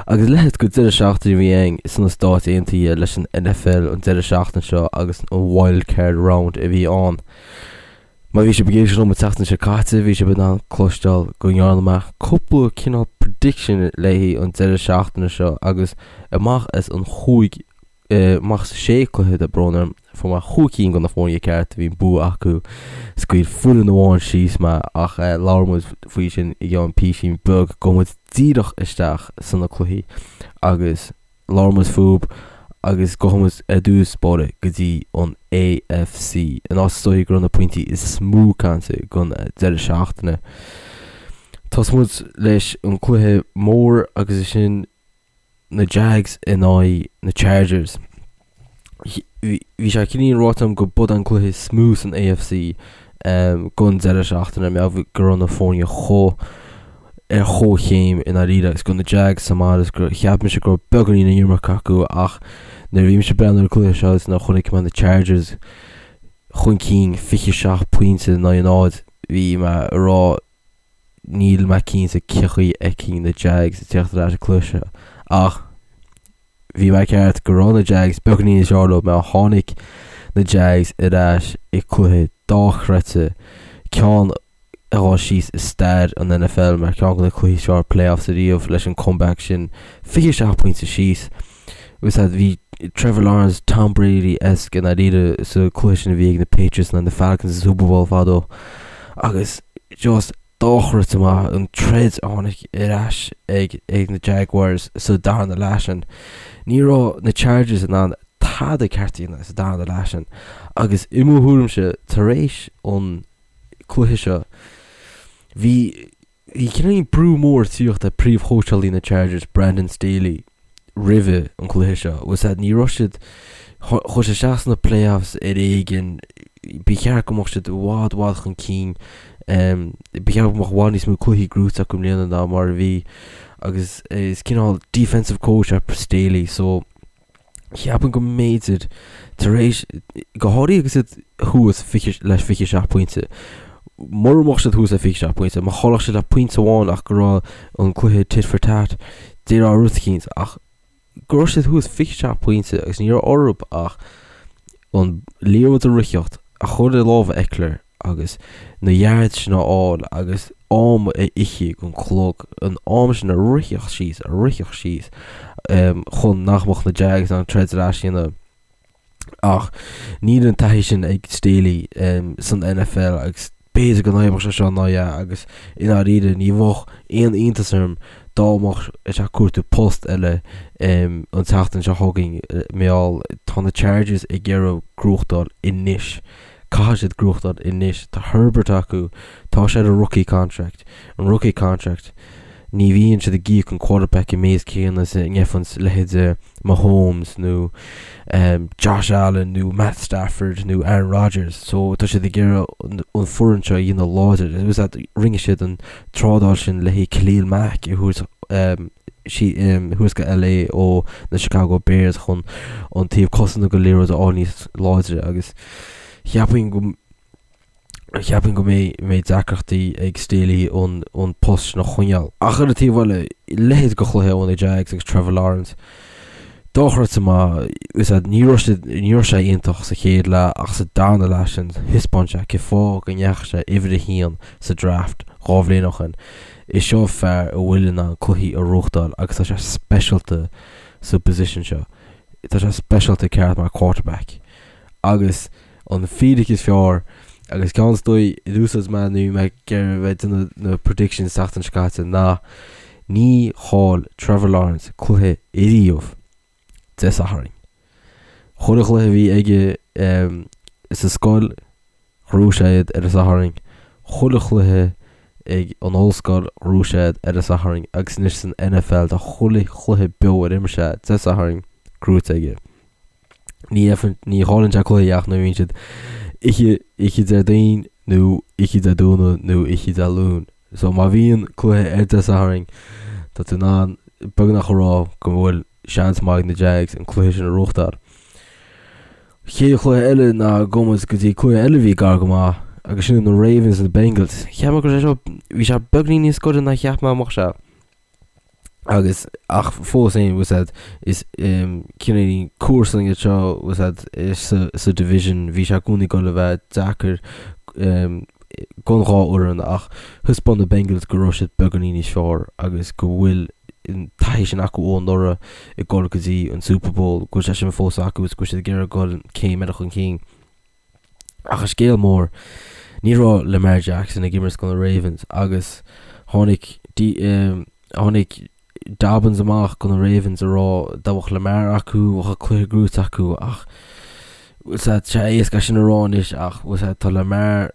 Agus leithéid de deireadh seachtaine a bhí ann sna Stáit Aontaithe leis an NFL an deireadh seachtaine seo agus an Wild Card Round a bhí ann. Má bhí sibh ag éisteacht liom an tseachtain seo caite bhí sibh in ann cloisteáil go ndearna mé cúpla cineál prediction léi an deireadh seachtaine seo agus amach as an chúig amach as sé cluiche tá brón orm, fuair mé chúig cinn de na foirne ceart a bhí an bua acu, scaoil foireann amháin síos mé ach labhróidh muid faoi sin i gceann písín beag, gabhfaidh muid díreach isteach sna cluichí agus labhróidh muid fúb agus gabhfaidh muid ar dtús báire go dtí an AFC, an áit is dóichí go raibh na pointí is mó cainte don deireadh seachtaine. Tosóidh muid leis an cluiche mór agus is sin na Jags in aghaidh na Chargers. Bhí sé cineál ráite agam go b'é an cluiche is mó san AFC don deireadh seachtaine mar go raibh na foirne chomh ar chomhchéim i ndáiríre agus go raibh na Jags sa mbaile agus gur cheap mise go raibh beagáinín an iomarca acu ach nuair a bhí mise ag breathnú ar an cluiche seo is nuair a chonaic mé na Chargers chun cinn 27 pointe in aghaidh a 0 bhí mé ag rá Níl mé cinnte cén chaoi a bhfeicfinn na Jags ag teacht ar ais sa cluiche seo ach bhí mé ceart go raibh na Jags beagáinín níos fearr leo mar tháinig na Jags ar ais i cluiche dochreidte, ceann a ghabhfaidh síos i stair an NFL mar ceann de na cluichí is fearr playoffs ariamh leis an comeback sin, 27 pointe síos. Agus bhí Trevor Lawrence, Tom Brady-esque i ndáiríre sa cluiche sin a bhí ag na Patriots in aghaidh na Falcons sa Super Bowl fadó agus just dochreidte maith an troid a tháinig ar ais ag ag na Jaguars sa darna leath sin. Ní raibh na Chargers in ann tada ceart a dhéanamh sa darna leath sin agus i mo thuairimse tar éis an cluiche seo bhí Bhí cineál brú mór ag tíocht ar príomhchóitseálaí na Chargers, Brandon Staley, roimhe an cluiche seo. Bhfuil a fhios agat, ní raibh siad, chuaigh siad isteach sna playoffs ar éigean, ba cheart go mbeadh siad i bhfad, i bhfad chun cinn, ba cheart go mbeadh i bhfad níos mó cluichí gnóite acu i mbliana ná mar a bhí agus is cineál defensive coach é Staley so Cheapfainn go mb'fhéidir, tar éis, go háirithe agus iad thuas le 27 pointe, mura mbeadh siad thuas le 27 pointe, má chaillfeadh siad le pointe amháin ach go raibh an cluiche tit for tat, déarfá rud eicínt, ach go raibh siad thuas 27 pointe agus ní raibh orthu ach an liathróid a ritheacht, a chur i lámha Ekeler agus na yards sin a fháil agus am a ithe den chlog, an am sin a ritheacht síos, a ritheacht síos chun nach mbeadh na Jags in ann troid ar ais a dhéanamh. Ach níl an taithí sin ag Staley san NFL agus b'fhéidir go n-oibreodh sé seo ná ea agus i ndáiríre ní bheadh aon iontas orm dá mbeadh sé ag cuartú post eile an tseachtain seo chugainn mar gheall tá na Chargers ag iarraidh gnóthachtáil anois. Caithfidh siad gnóthachtáil anois. Tá Herbert acu, tá sé ar a rookie contract. An rookie contract, ní bhíonn siad ag íoc an quarterback an méid céanna is a ngeibheanns leithéide Mahomes nó Josh Allen nó Matt Stafford nó Aaron Rodgers. So tá siad ag iarraidh an foireann seo a dhéanamh láidir. Rinne siad an trádáil sin le haghaidh Khalil Mack a thabhairt thuas go LA ó na Chicago Bears chun an taobh cosanta den liathróid a fháil níos láidre agus cheapfainn go cheapfainn go mbeidh mbeidh deacrachtaí ag Staley an an post sin a choinneáil. Ach ar an taobh eile, leithéid de chluiche ó na Jags agus Trevor Lawrence dochreidte maith, is ea ní raibh sé ní raibh sé iontach sa chéad leath ach sa darna leath sin thaispeáin sé cén fáth go ndeachaigh sé uimhir a haon sa draft dhá bhliain ó shin. Is seo fear a bhfuil in ann cluichí a ghnóthachtáil agus tá sé speisialta sa position seo. Tá sé speisialta ceart mar quarterback. Agus an fíric is fearr agus ceann is dóigh a d'úsáid mé nuair a bhí mé ag iarraidh bheith ag déanamh na predictions seachtain seo caite ná ní chaill Trevor Lawrence cluiche ariamh Dé Sathairn. Chuile chluiche a bhí aige sa scoil Ghnóthaigh sé iad ar an Satharn, chuile chluiche ag an ollscoil ghnóthaigh sé iad ar an Satharn agus anois san NFL tá chuile chluiche beo ar imir sé Dé Sathairn gnóite aige. Ní ní chailleann sé cluiche ach nuair a bhíonn siad oíche oíche Déardaoin nó oíche Dé Domhnaigh nó oíche Dé Luain. So má bhíonn cluiche ar Dé Sathairn tá tú in ann beagnach a rá go bhfuil seans maith ag na Jags an cluiche sin a ghnóthachtáil. Chéad chluiche eile ná gabhfaidh muid go dtí cluiche eile a bhí gar go maith agus sin na Ravens na Bengals. Cheap mé go raibh sé seo, bhí sé beagnín níos gaire ná cheap mé go mbeadh sé. Agus, ach fós féin, bhfuil a fhios a'd, is cineál comharsan iad seo, bhfuil a fhios a'd, sa, sa division, bhí sé i gcónaí ag dul a bheith deacair don dhá fhoireann ach thaispeáin na Bengals go raibh siad beagáinín níos fearr agus go bhfuil an taithí sin acu ó anuraidh ag dul go dtí an Super Bowl, go bhfuil sé sin fós acu agus go bhfuil siad ag iarraidh dul céim eile chun cinn. Ach an scéal mór, ní raibh Lamar Jackson ag imirt do na Ravens agus tháinig tháinig Dobbins amach do na Ravens a rá dá mbeadh Lamar acu bheadh an cluiche gnóite acu ach bhfuil a fhios a'd, tá sé éasca sin a rá anois ach bhfuil a fhios a'd, tá Lamar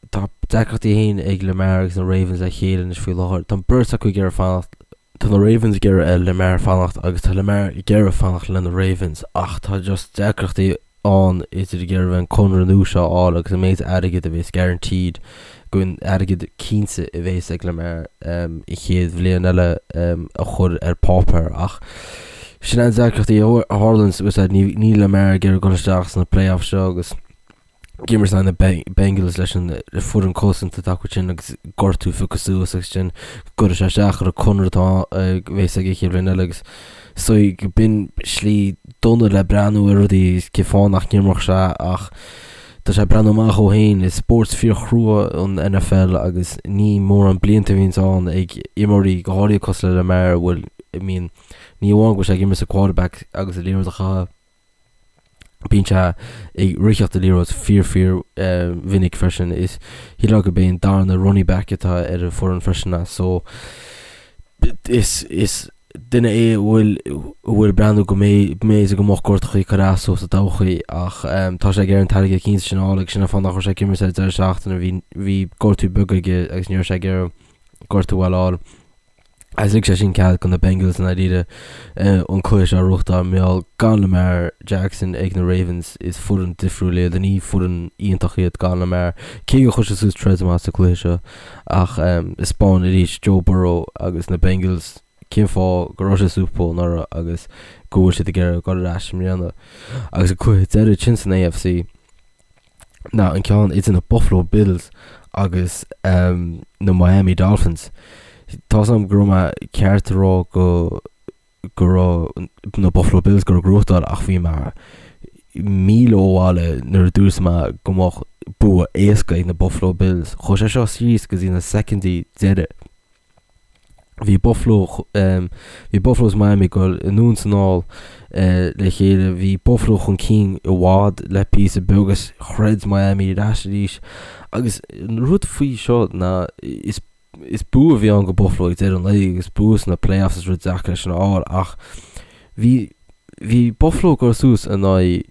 tá deacrachtaí féin ag Lamar agus na Ravens le chéile anois faoi láthair. Tá an beirt acu ag iarraidh fanacht Tá na Ravens ag iarraidh ar Lamar fanacht agus tá Lamar ag iarraidh fanacht le na Ravens ach tá just deacrachtaí ann idir ag iarraidh an conradh nua seo a fháil agus an méid airgid a bhéas guaranteed go an airgead cinnte a bhéas ag Lamar an chéad bhliain eile a chur ar páipéar ach sin an deacrachtaí a tharlaíonn níl Lamar ag iarraidh dul isteach sna playoffs seo agus ag imirt in aghaidh na Bengals leis an foireann cosanta atá acu sin agus gortú pioctha suas agus sin go gcuirfidh sé isteach ar an conradh atá a bheas aige chéad bhliain eile agus so b'in slí dona le breathnú ar rudaí cén fáth nach n-imreodh sé ach tá sé ag breathnú amach dó féin is spórt fíorchrua an NFL agus ní mórán blianta a bhíonns ann ag imreoirí go háirithe cosúil le Lamar a bhfuil I mean ní amháin go bhfuil sé ag imirt sa quarterback agus an liathróid a chaitheamh Bíonn sé ag ritheacht an liathróid fíor fíor mhinic freisin. Is shílfeá gurb é an darna running back atá ar an foireann freisin é so is is duine é a bhfuil a bhfuil breathnú go mb'fhéidir go mbeadh gortachaí ag cur as dó sa todhchaí ach tá sé ag iarraidh an t-airgead cinnte sin a fháil agus sin an fáth nach raibh sé ag imirt ar an deireadh seachtaine bhí bhí gortú beag aige agus ní raibh sé ag iarraidh gortú a fháil. Agus lig sé sin cead do na Bengals i ndáiríre an cluiche seo a ghnóthachtáil mar gheall gan Lamar Jackson ag na Ravens is foireann difriúil iad, ní foireann iontach iad gan Lamar. Cé gur chuir sé suas troid maith sa cluiche seo ach thaispeáin arís Joe Burrow agus na Bengals cén fáth go raibh sé Super Bowl anuraidh agus go bhfuil siad ag iarraidh dul ar ais i mbliana. Agus an cluiche deiridh sin san AFC. ná an ceann idir na Buffalo Bills agus na Miami Dolphins. Tá 's agam go raibh mé ceart a rá go go raibh na Buffalo Bills ag dul a ghnóthachtáil ach bhí mé míle ó bhaile nuair a dúirt mé go mbeadh bua éasca ag na Buffalo Bills. Chuaigh sé seo síos go dtí na soicindí deiridh. Bhí Buffalo bhí Buffalo is Miami ag dul anonn is anall le chéile. Bhí Buffalo chun cinn i bhfad le píosa beag agus throid Miami ar ais arís. Agus an rud faoi seo ná is is bua a bhí ann go Buffalo ag deireadh an lae agus bua sna playoffs is rud deacair é sin a fháil ach bhí bhí Buffalo ag dul suas in aghaidh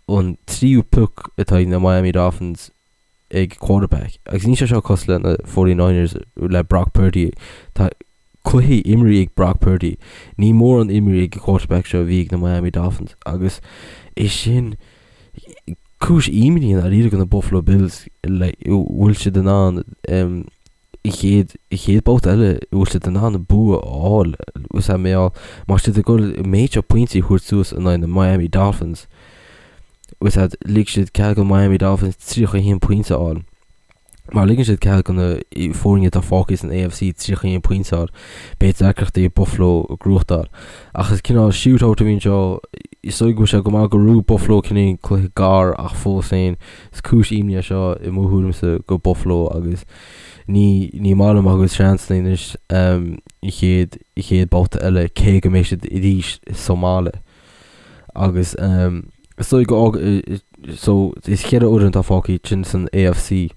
an tríú pick atá ag na Miami Dolphins ag quarterback agus níl sé seo cosúil le na 49ers le Brock Purdy. Tá cluichí imrithe ag Brock Purdy. Ní mórán imrithe ag an quarterback seo a bhí ag na Miami Dolphins agus é sin cúis imní i ndáiríre do na Buffalo Bills like bhfuil siad in ann um, i chéad i chéad babhta eile bhfuil siad in ann bua a fháil is é mé má siad ag dul méid seo pointí a thabhairt suas in aghaidh na Miami Dolphins Is ea, lig siad cead do Miami Dolphins 31 pointe a fháil. Má ligeann siad cead do na foirne atá fágtha san AFC 31 pointe a fháil, beidh deacrachtaí ag Buffalo a ghnóthachtáil. Ach is cineál shootout a bhí anseo. Is dóigh go bhfuil sé go maith go raibh Buffalo cineál cluiche gar ach fós féin is cúis imní é seo i mo thuairimse go Buffalo agus ní ní maith liom a gcuid seansanna anois an chéad an chéad babhta eile cé go mbeidh siad arís sa mbaile. Agus is dóigh go so is cheithre fhoireann atá fágtha sin san AFC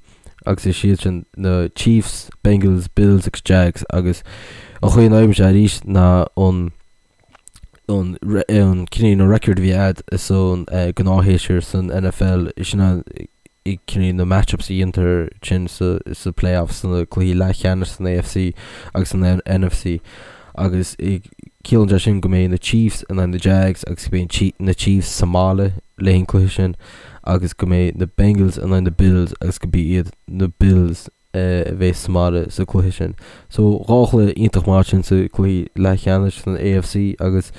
agus is iad sin na Chiefs, Bengals, Bills agus Jags agus an chaoi a n-oibríonn sé arís ná an an an cineál na record a bhí a'd san gnáthshéasúr san NFL sin an cineál na matchups a dhéantar sin sa sa playoffs sna cluichí leathcheannais san AFC agus san NFC agus ciallaíonn sé sin go mbeidh na Chiefs in aghaidh na Jags agus go mbeidh na Chiefs sa mbaile le haghaidh an cluiche sin agus go mbeidh na Bengals in aghaidh na Bills agus go mbeidh iad na Bills a bheas sa mbaile sa cluiche sin. So dhá chluiche iontach maith sin sa cluiche leathcheannais san AFC agus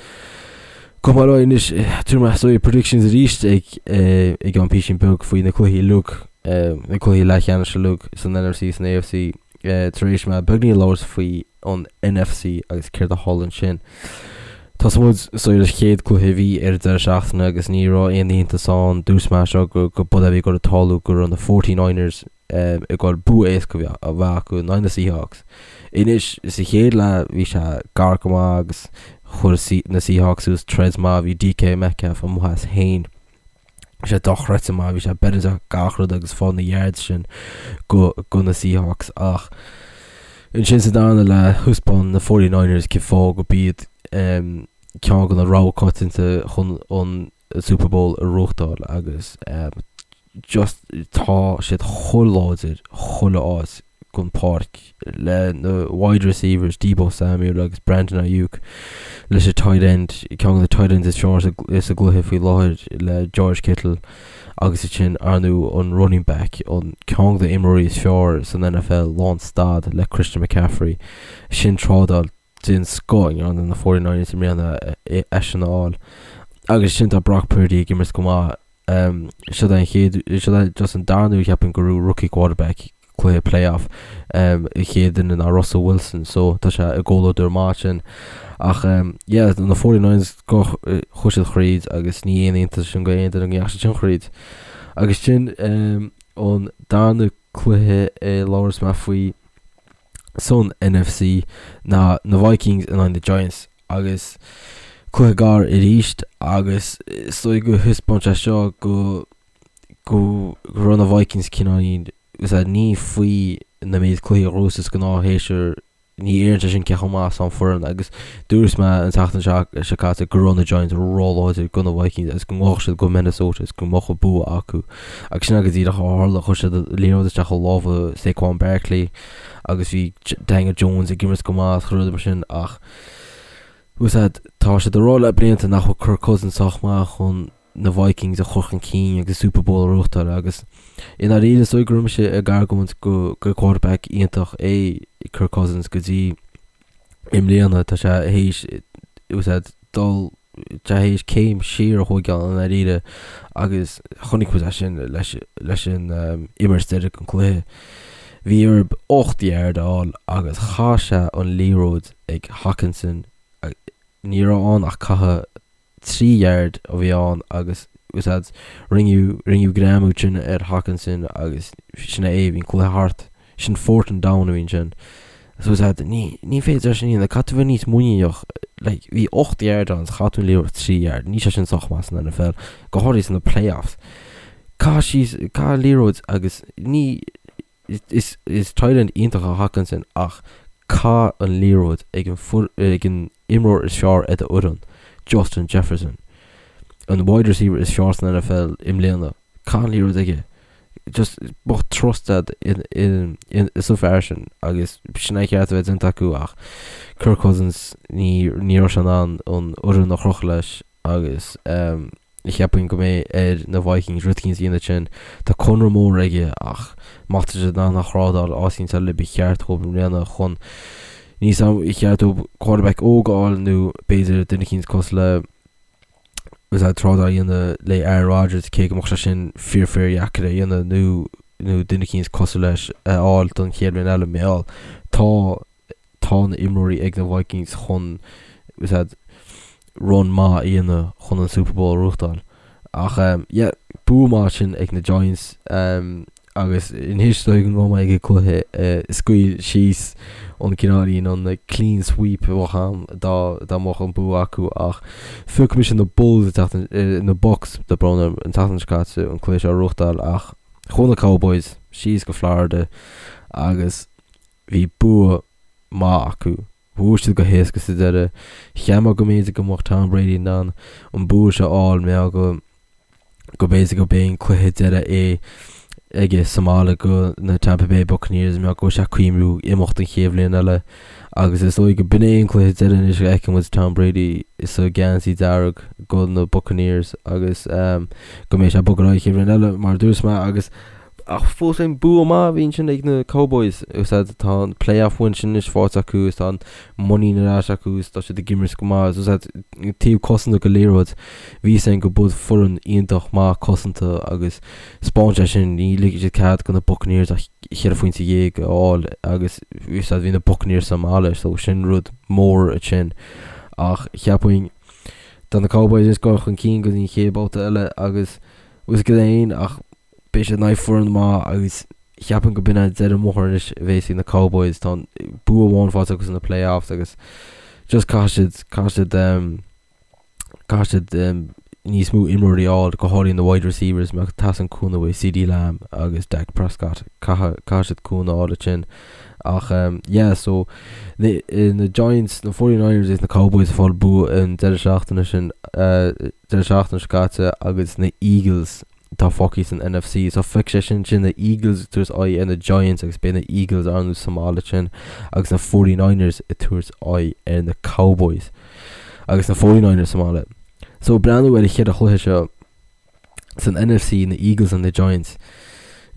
go maith leo anois tabharfaidh mé so predictions arís ag i gceann písín beag faoi na cluichí uilig na cluichí leathcheannais uilig san NFC san AFC. tar éis mé beagní labhairt faoi an NFC agus céard a tharla ansin. Tosóidh muid so ar an chéad cluiche a bhí ar an deireadh seachtaine agus ní raibh aon iontas ann, dúirt mé seo go go b'é a bhí ag dul a tarlú go raibh na 49ers ag dul bua éasca a bheith acu in aghaidh na Seahawks. Anois sa chéad leath bhí sé gar go maith agus chuir na Seahawks suas troid maith, bhí DK Metcalf amuigh as féin. Bhí sé dochreidte maith, bhí sé beireadh gach rud agus fáil na yards sin go go na Seahawks ach ansin sa darna leath thaispeáin na 49ers cén fáth go b'iad um, ceann de na rogha coitianta chun an Super Bowl a ghnóthachtáil agus um, just tá siad chomh láidir chuile áit den pháirc le na wide receivers Deebo Samuel agus Brandon Aiyuk leis an tight end ceann de na tight ends is fearr sa gcluiche faoi láthair le George Kittle agus ansin ar ndóigh an running back an ceann de na imreoirí is fearr san NFL lán stad le Christian McCaffrey sin trádáil den scoth a rinne na 49ers i mbliana eisean a fháil agus sin tá Brock Purdy ag imirt go maith Seo é an chéad, seo é just an darna huair cheapfainn go raibh rookie quarterback cluiche playoff. An chéad duine ná Russell Wilson so tá sé i gcomhluadar maith sin. Ach yeah, na 49ers go chuaigh siad thríd agus ní aon iontas sin go aon duine go ndeachaigh siad sin thríd. Agus sin an darna cluiche a labhras mé faoi san NFC ná na Vikings in aghaidh na Giants. agus cluiche gar arís agus is dóigh go thaispeáin sé seo go go raibh na Vikings cineáilín ní faoi na méid cluichí a ghnóthú is gnáth shéasúr ní léiríonn sé sin cé chomh maith is atá an foireann agus dúirt mé an tseachtain seo caite go raibh na Giants róláidir go na Vikings agus go ngabhfadh siad go Minnesota agus go mbeadh an bua acu agus sin go díreach a tharla chuir siad liathróid isteach i lámha Saquon Barkley agus bhí Daniel Jones ag imirt go maith agus rudaí mar sin ach Úsáid, Tá siad ag rá le blianta nach bhfuil Kirk Cousins sách maith chun na Vikings a chur chun cinn agus Super Bowl a ghnóthachtáil agus i ndáiríre is dóigh go raibh mise ag argóint go gur quarterback iontach é Kirk Cousins go dtí i mbliana tá sé théis úsáid dul tá théis céim siar a thógáil i ndáiríre agus chonaic muid é sin leis leis an imirt deiridh an cluiche. Bhí orthu 8 yard a fháil agus chaith sé an liathróid ag Hockenson, ní raibh ann ach caitheamh 3 yard a bhí ann agus úsáid rinneadh rinneadh greamú sin ar Hockenson agus sin é, bhí an cluiche thart. Sin fourth and down a bhí ansin. So úsáid ní ní féidir sin a dhéanamh, caithfidh tú bheith níos muiníneach like bhí 8 yard ann chaith tú an liathróid 3 yard, níl sé sin sách maith san NFL, go háirithe sna playoffs. Caith síos, caith an liathróid agus ní Is is tight end iontach é Hockenson ach caith an liathróid ag an ag an imreoir is fearr ar do fhoireann, Justin Jefferson. An wide receiver is fearr san NFL i mbliana. Caith an liathróid aige. Just bheadh trust agat in in in sa fear sin agus sin é ceart a bheith déanta acu ach Kirk Cousins ní ní raibh sé in ann an fhoireann a chrochadh leis agus um, Cheapfainn go mbeidh ar na Vikings rud éicint a dhéanamh ansin. Tá conradh mór aige ach má tá siad in ann a thrádáil áit éicint eile ba cheart dóibh i mbliana chun níos am ba cheart dóibh quarterback óg a fháil nó b'fhéidir duine éicint cosúil le is é trádáil a dhéanamh le Aaron Rodgers cé go mbeadh sé sin fíor fíor dheacair a dhéanamh nó nó duine éicint cosúil leis a fháil don chéad bhliain eile mar tá tá na imreoirí ag na Vikings chun run maith a dhéanamh chun an Super Bowl a ghnóthachtáil. Ach yeah, bua maith sin ag na Giants agus anois dóigh go mbeidh mé ag an cluiche scaoil síos an cineáilín an clean sweep a bheadh ann dá dá mbeadh an bua acu ach phioc mise na Bulls an tseachtain na Bucks tá brón orm an tseachtain seo caite an cluiche seo a ghnóthachtáil ach chuaigh na Cowboys síos go Florida agus Bhí bua maith acu. Bhuaigh siad go héasca sa deireadh. Cheap mé go mb'fhéidir go mbeadh Tom Brady in ann an bua seo a fháil mar go go mb'fhéidir go b'é an cluiche deireadh é aige sa mbaile go na Tampa Bay Buccaneers mar go bhfuil sé ag cuimhniú imeacht an chéad bhliain eile agus is dóigh go b'in é an cluiche deireadh anois a fheicfidh muid Tom Brady sa gheansaí dearg go na Buccaneers agus go mbeidh sé ag bogadh ar aghaidh an chéad bhliain eile mar a dúirt mé agus. Ach fós féin bua maith a bhí ansin ag na Cowboys. Úsáid tá an playoff win sin anois faighte acu is tá an muinín ar ais acu is tá siad ag imirt go maith. Is úsáid taobh cosanta den liathróid. Bhí a fhios againn go b'fhuil foireann iontach maith cosanta agus 'spáin sé sin ní ligfidh siad cead do na Buccaneers ach cheithre phointe dhéag a fháil agus úsáid bhí na Buccaneers sa mbaile so sin rud mór ansin. Ach cheapfainn tá na Cowboys ag dul chun cinn go dtí an chéad babhta eile agus bhfuil a fhios agat féin ach beidh siad in aghaidh foireann maith agus cheapfainn go b'in é deireadh an bhóthair anois a bheas ag na Cowboys. Tá an bua amháin faighte acu sna playoffs agus just caithfidh siad, caithfidh siad um, caithfidh siad um, níos mó imreoirí a fháil, go háirithe na wide receivers, mar teastaíonn cúnamh uaidh CeeDee Lamb agus Dak Prescott. Caithfidh, caithfidh siad cúnamh a fháil ansin. Ach um, yeah, so na, eh, na Giants, na 49ers agus na Cowboys ag fáil bua an deireadh seachtaine sin, uh, deireadh seachtaine seo caite agus na Eagles atá fágtha san NFC. So feicfidh sé sin sin na Eagles ag tabhairt aghaidh ar na Giants agus beidh na Eagles ar ndóigh sa mbaile sin agus na 49ers ag tabhairt aghaidh ar na Cowboys agus na 49ers sa mbaile. So breathnú ar an cheithre chluiche seo san NFC na Eagles and na Giants.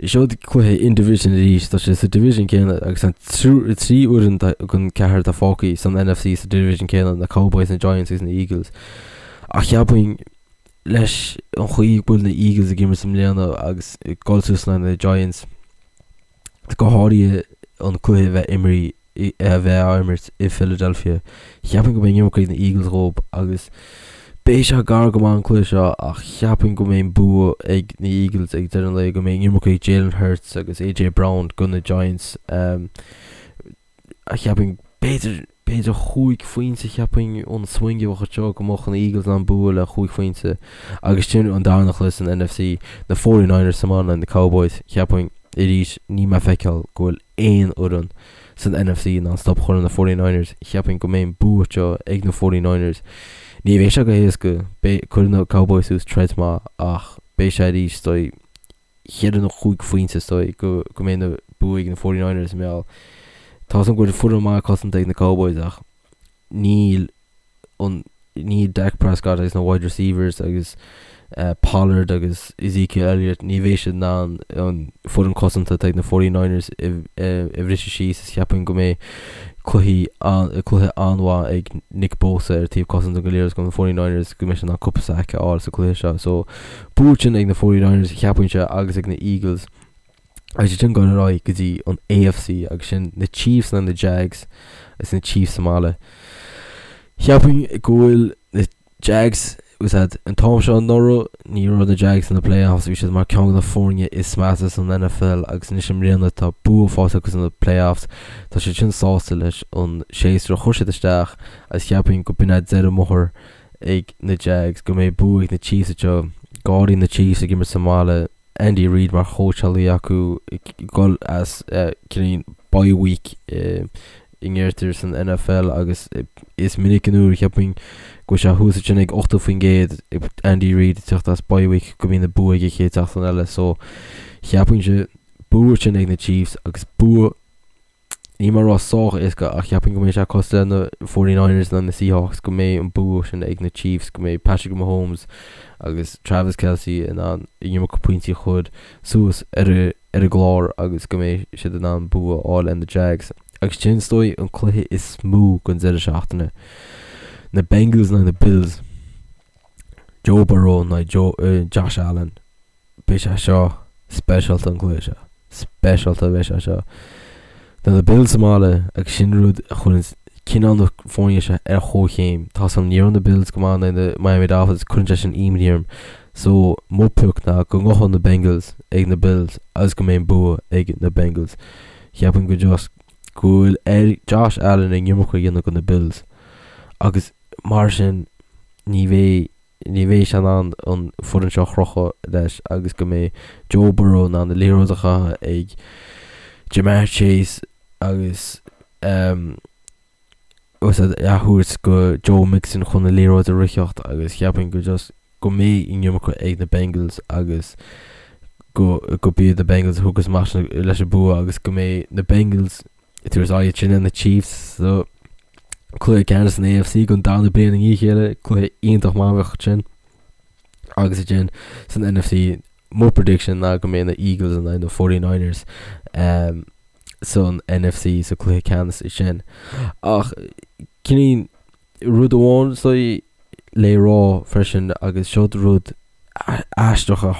Seo cluiche in division arís tá sé sa division céanna agus an 3 fhoireann den ceathrar atá fágtha san NFC sa division céanna na Cowboys, na Giants agus na Eagles. Ach cheapfainn leis an chaoi go bhfuil na Eagles ag imirt i mbliana agus ag dul suas le na Giants, go háirithe an cluiche a bheith imrí a bheith á imirt i Philadelphia, cheapfainn go mbeidh an iomarca ag na Eagles dhóibh agus beidh sé gar go maith an cluiche seo ach cheapfainn go mbeidh an bua ag na Eagles ag deireadh an lae, go mbeidh an iomarca ag Jalen Hurts agus AJ Brown do na Giants. Cheapfainn, b'fhéidir, b'fhéidir chúig phointe cheapfainn an swing a bheadh anseo go mbeadh na Eagles in ann bua le chúig phointe agus sin an darna cluiche san NFC, na 49ers sa mbaile na Cowboys, cheapfainn, arís, níl mé ag feiceáil go bhfuil aon fhoireann san NFC in ann stop a chur ar na 49ers, cheapfainn go mbeidh an bua seo ag na 49ers. Ní bheidh sé go héasca, beidh, cuirfidh na Cowboys suas troid maith ach beidh sé arís, is dóigh, cheithre nó chúig phointe is dóigh go go mbeidh an bua ag na 49ers i mbeal. Tá a fhios agam go bhfuil foireann maith cosanta ag na Cowboys ach níl an níl Dak Prescott agus na wide receivers agus uh, Pollard agus Ezekiel Elliott ní bheidh siad in ann an foireann cosanta atá ag na 49ers a bhriseadh síos is cheapfainn go mbeidh cluichí cluiche an-mhaith ag Nick Bosa ar taobh cosanta go léir go na 49ers go mbeidh sé in ann cúpla sack a fháil sa cluiche seo. So Bua sin ag na 49ers, cheapfainnse, agus ag na Eagles. Agus sin dul ar aghaidh go dtí an AFC agus sin na Chiefs nó na Jags agus na Chiefs sa mbaile. Cheapfainn go bhfuil na Jags úsáid an t-am seo anuraidh ní raibh na Jags sna playoffs bhí siad mar ceann de na foirne is measa san NFL agus anois i mbliana tá bua faighte acu sna playoffs tá siad sin sásta leis an séasúr a chuir siad isteach agus cheapfainn go b'in é deireadh an bhóthair ag na Jags, go mbeidh bua ag na Chiefs anseo, go háirithe na Chiefs ag imirt sa mbaile, Andy Reid mar chóitseálaí acu ag dul as cineál bye week a ndeirtear san NFL agus is minic an uair cheapfainn go bhfuil sé thuas ansin ag 80% Andy Reid ag teacht as bye week go mbíonn an bua aige chéad seachtain eile so cheapfainnse bua sin ag na Chiefs agus bua Níl mé ag rá sách éasca ach cheapfainn go mbeidh sé cosúil le na 49ers nó na Seahawks go mbeidh an bua sin ag na Chiefs, go mbeidh Patrick Mahomes agus Travis Kelce in ann an iomarca pointí a chur suas ar ar an gclár agus go mbeidh siad in ann bua a fháil ar na Jags. Agus sin is dóigh an cluiche is mó den deireadh seachtaine. Na Bengals nó na Bills. Joe Burrow nó Josh Allen. Beidh sé seo speisialta an cluiche seo. Speisialta a bheidh sé seo. Tá na Bills sa mbaile agus sin rud a chuireann cineál na foirne seo ar chomhchéim. Tá san ní raibh na Bills go maith in aghaidh na Miami Dolphins cuireann sé sin imní orm. So mo pioc ná go ngabhfaidh na Bengals ag na Bills agus go mbeidh an bua ag na Bengals. Cheapfainn go just go bhfuil ar Josh Allen an iomarca a dhéanamh do na Bills agus mar sin ní bheidh ní bheidh sé in ann an foireann seo a chrochadh leis agus go mbeidh Joe Burrow in ann an liathróid a chaitheamh ag Ja'Marr Chase agus um, a thabhairt go Joe Mixon chun na liathróid a ritheacht agus cheapfainn go just go mbeidh an iomarca ag na Bengals agus go go b'iad na Bengals a thiocfas amach leis an bua agus go mbeidh na Bengals Ag tabhairt aghaidh ansin ar na Chiefs sa cluiche ceannais san AFC don darna bliain i ndiaidh a chéile, cluiche iontach maith a bheadh ansin. Agus ansin san NFC. Mo prediction ná go mbeidh na Eagles in aghaidh na 49ers san NFC sa cluiche ceannais sin. Ach cineál rud amháin so le rá freisin agus seo rud aisteach a a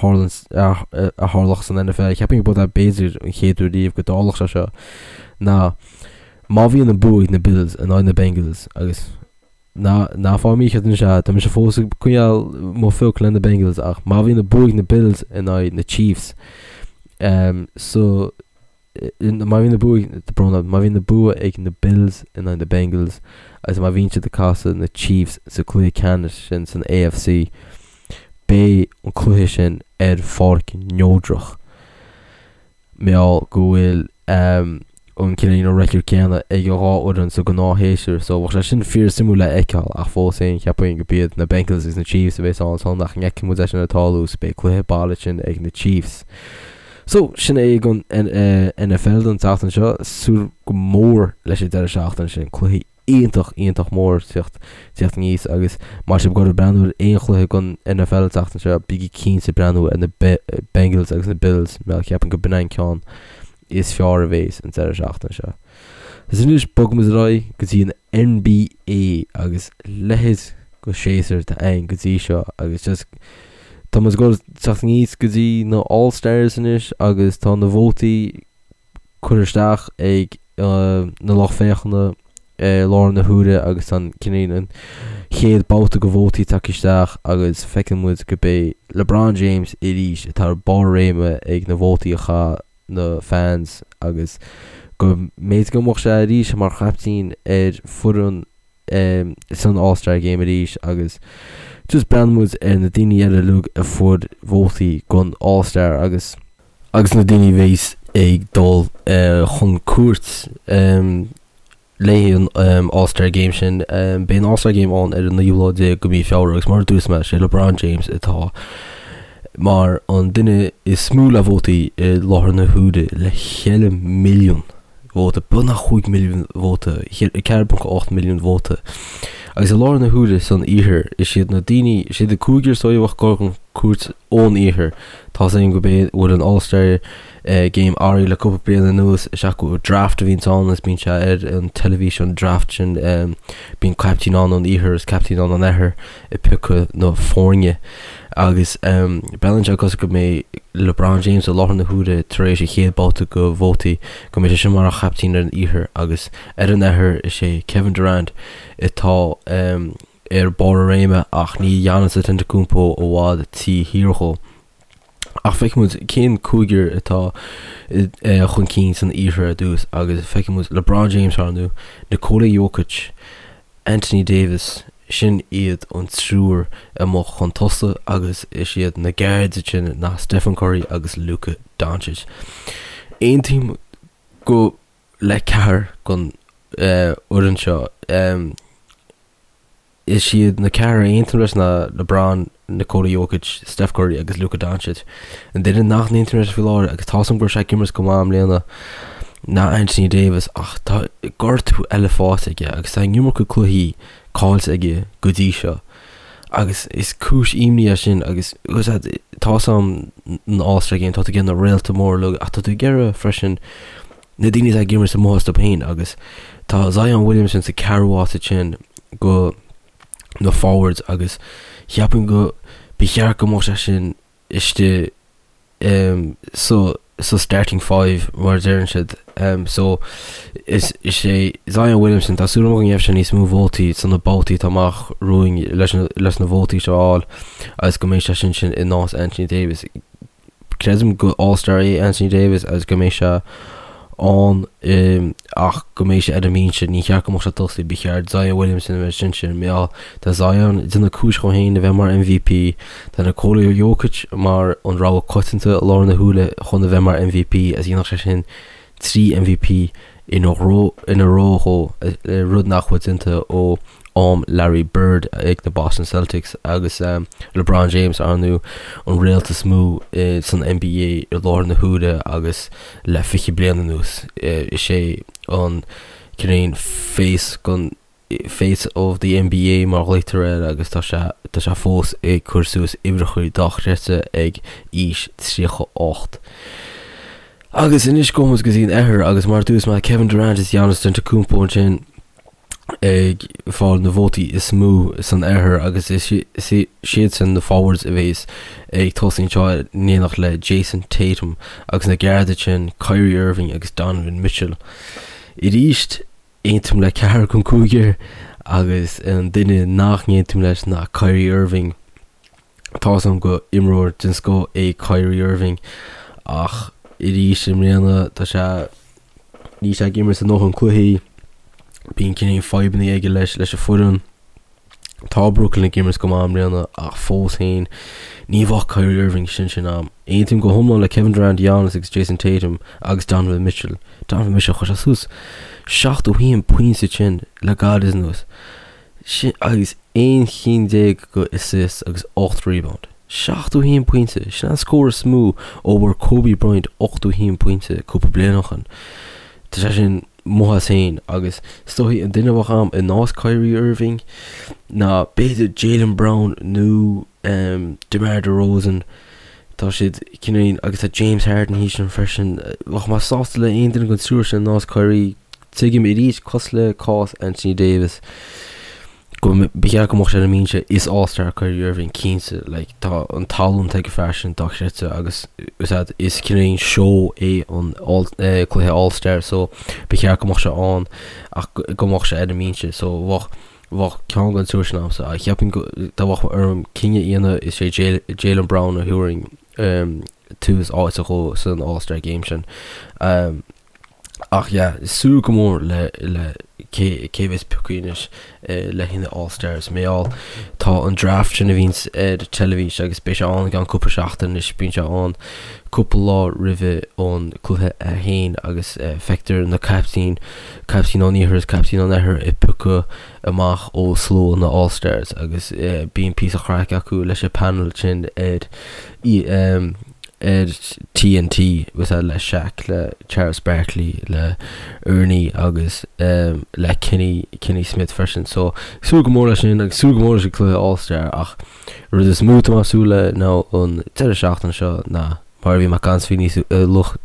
tharlódh san NFL, cheapfainn go b'fhéidir an chéad uair riamh go dtarlódh sé seo, ná má bhíonn an bua ag na Bills in aghaidh na Bengals agus Ná, ná fág mícheart anois é, tá mise fós ag coinneáil mo phioc le na Bengals ach má bhíonn an bua ag na Bills in aghaidh na Chiefs, um, so, má bhíonn an bua, brón orm, má bhíonn an bua ag na Bills in aghaidh na Bengals agus má bhíonn siad ag casadh na Chiefs sa cluiche ceannais sin san AFC, beidh an cluiche sin ar pháirc neodrach. Mar gheall go bhfuil an cineál record céanna ag an dhá fhoireann sa ghnáthshéasúr so bheadh sé sin fíor suimiúil le fheiceáil ach fós féin cheapfainn go b'iad na Bengals agus na Chiefs a bheas ann ansan ach ní fheicfidh muid é sin ag tarlú so beidh cluiche baile sin ag na Chiefs. So sin é don NFL don tseachtain seo, súil go mór leis an deireadh seachtaine sin, cluichí iontach, iontach mór teacht, teacht aníos agus má tá sibh ag goil ag breathnú ar aon chluiche den NFL an tseachtain seo, bígí cinnte ag breathnú ar na Bengals agus na Bills mar ceapaim go b'in an ceann is fearr a bhéas an deireadh seachtaine seo. Agus anois bogfaimid ar aghaidh go dtí an NBA agus leithéid de shéasúr atá ann go dtí seo agus just tá muid ag goil teacht aníos go dtí na All Stars anois agus tá na vótaí curtha isteach ag na lucht féachana i láthair na huaire agus an cineál an chéad babhta de vótaí tagtha isteach agus feiceann muid go b'é LeBron James arís atá ar barr réime ag na vótaí a chaith na fans agus go mb'fhéidir go mbeadh sé arís mar chaiptín ar foireann san All Star Game arís agus just breathnaíonn muid ar na daoine eile uilig a fuair vótaí don All Star agus agus na daoine a bheas ag dul chun cúirt le an All Star Game sin. Beidh an All Star Game ann ar an naoú lá déag de mhí Feabhra agus mar a dúirt mé, sé LeBron James atá mar an duine is mó le vótaí i láthair na huaire le 4 milliún vóta, beagnach 5 milliún vóta, 4.8 milliún vóta. Agus i láthair na huaire san iarthar, is iad na daoine, is iad an cúigear is dóigh a bheadh ag dul chun cúirt ón iarthar. Tá's againn go b'é bhfuil an All Star Game athraithe le cúpla bliain anuas, is ea go draft a bhíonns ann agus bíonn sé ar an teilifís an draft sin, bíonn caiptín ann ón iarthar is caiptín ann ón oirthear. ag piocadh na foirne agus breathnaíonn sé cosúil go mbeidh LeBron James i láthair na huaire tar éis a chéad babhta de vótaí go mbeidh sé sin mar an chaiptín ar an iarthar agus ar an oirthear is é Kevin Durant atá ar barr a réime ach níl Giannis Antetokounmpo i bhfad taobh thiar dhó. Ach feicfidh muid cén cúigear atá chun cinn san iarthar ar dtús agus feicfidh muid LeBron James ar ndóigh, Nikola Jokic, Anthony Davis, sin iad an triúr amuigh chun tosaigh agus is iad na guards ansin ná Stephen Curry agus Luka Doncic. Aontaím go le ceathrar den fhoireann seo. Is iad na ceathrar a aontaím leis ná LeBron, Nikola Jokic, Steph Curry agus Luka Doncic. An duine nach n-aontaím leis faoi láthair, agus tá's agam go raibh sé ag imirt go maith i mbliana, ná Anthony Davis ach tá gortú eile faighte aige agus tá an iomarca cluichí caillte aige go dtí seo. Agus is cúis imní é sin agus tá's agam an All-Star Game, tá tú ag iarraidh na réalta móra uilig ach tá tú ag iarraidh freisin na daoine atá ag imirt amuigh astu féin agus tá Zion Williamson sa ceathrú áit ansin go na forwards agus cheapfainn go ba cheart go mbeadh sé sin istigh um, so so starting five mar a deireann siad um, so is, is é Zion Williamson tá súil agam go ngeobhaidh sé níos mó vótaí sna babhtaí atá amach romhainn leis na, leis na vótaí seo a fháil agus go mbeidh sé sin sin in áit Anthony Davis Creidim go All Star é Anthony Davis agus go mbeidh sé ann ach go mbeidh sé ar an mbinse. Ní cheart go mbeadh sé ag tosaí, ba cheart Zion Williamson a bheith ansin. Mar gheall tá Zion ag déanamh cúis dhó féin a bheith mar MVP. Tá Nikola Jokic mar an rogha coitianta i láthair na huaire chun a bheith mar MVP agus dhéanfadh sé sin 3 MVP ina ró dhó, rud nach bhfuil déanta ó am Larry Bird ag na Boston Celtics agus LeBron James, ar ndóigh, an réalt is mó san NBA i láthair na huaire agus le 20 bliain anuas. Is é an cineál face gon. Face of the NBA mar a ghlaoitear air agus tá sé tá sé fós ag cur suas uimhreacha dochreidte ag aois 38. Agus anois gabhfaidh muid go dtí an Oirthear agus mar a dúirt mé Kevin Durant is Giannis Antetokounmpo ansin ag fáil na vótaí is mó san Oirthear agus is iadsan na forwards a bhéas ag tosú anseo in éineacht le Jayson Tatum agus na guards sin Kyrie Irving agus Donovan Mitchell. Arís aontaím le ceathrar den cúigear agus an duine nach n-aontaím leis ná Kyrie Irving. Tá's agam gur imreoir den scoth é Kyrie Irving ach arís i mbliana tá sé níl sé ag imirt a ndóthain cluichí, bíonn cineál fadhbanna aige leis leis an foireann. Tá Brooklyn ag imirt go maith i mbliana ach fós féin ní bheadh Kyrie Irving sin sin am. Aontaím go hiomlán le Kevin Durant, Giannis agus Jayson Tatum agus Donovan Mitchell. Donovan Mitchell chuir sé suas 71 pointe sin le gairid anuas. Sin agus 11 chinn go assists agus 8 rebound. 71 pointe, sin an scór is mó ó bhfuair Kobe Bryant 81 pointe cúpla bliain ó shin. Tá sé sin amuigh as féin agus is dóichí an duine a bheadh a'm in áit Kyrie Irving ná b'fhéidir Jaylen Brown nó DeMar DeRozan. Tá siad cineál agus tá James Harden thíos ansin freisin. Bheadh mé sásta le aon duine den triúr sin in áit Kyrie. Tuigim arís, cosúil le cás Anthony Davis, go ba cheart go mbeadh sé ar an mbinse is All-Star Kyrie Irving cinnte like tá an tallann ag an fear sin dochreidte agus is ea is cineál seó é an all, eh, cluiche All-Star so ba cheart go mbeadh sé ann ach go mbeadh sé ar an mbinse so bheadh bheadh ceann den triúr sin a'msa ach cheapfainn go dá mbeadh orm cinneadh a dhéanamh is é Jaylen Brown a thabharfainn um, tús áite dhó san All-Star Game sin. Um, Ach yeah, súil go mór le le cé cé bheas pioctha anois le haghaidh na All Stars. Mar gheall tá an draft sin a bhíonns ar teilifís agus beidh sé ann i gceann cúpla seachtain anois, bíonn sé ann cúpla lá roimhe an cluiche a haon agus feictear na caiptín, caiptín ón iarthar is caiptín ón oirthear ag piocadh amach ó slua na All Stars agus bíonn píosa craic acu leis an panel sin ar ar TNT was le Shaq, le Charles Barkley, le Ernie agus le Kenny, Kenny Smith freisin. So súil go mór leis sin agus súil go mór leis an cluiche All Star ach rud is mó atá mé ag súil le ná an deireadh seachtaine seo ná mar a bhí mé ag caint faoi níos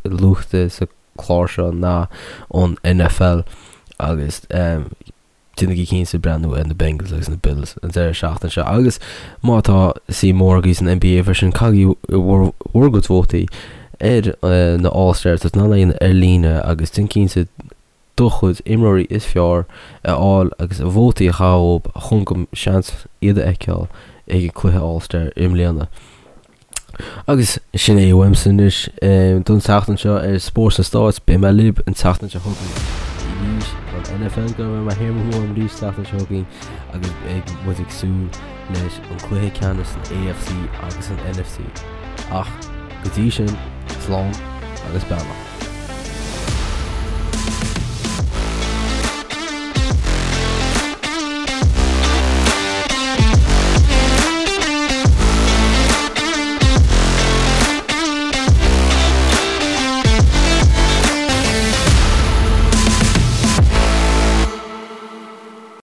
luaithe sa chlár seo ná an NFL agus Déanaigí cinnte breathnú ar na Bengals agus na Bills an deireadh seachtaine seo agus má tá suim mhór agaibh san NBA freisin, caithigí bhur gcuid vótaí ar na All Stars tá tú in ann ar líne agus déan cinnte do chuid imreoirí is fearr a fháil agus vótaí a chaitheamh chun go seans iad a fheiceáil ag an cluiche All Star i mbliana. Agus sin é uaimse anois don tseachtain seo ar Spórt sna Stáit. Beidh mé libh an tseachtain seo chugainn arís don NFL go mbeidh mé thiar mo thuairim arís tseachtain seo chugainn agus beidh muid ag súil leis an cluiche ceannais san AFC agus san NFC. Ach go dtí sin, slán agus beannacht.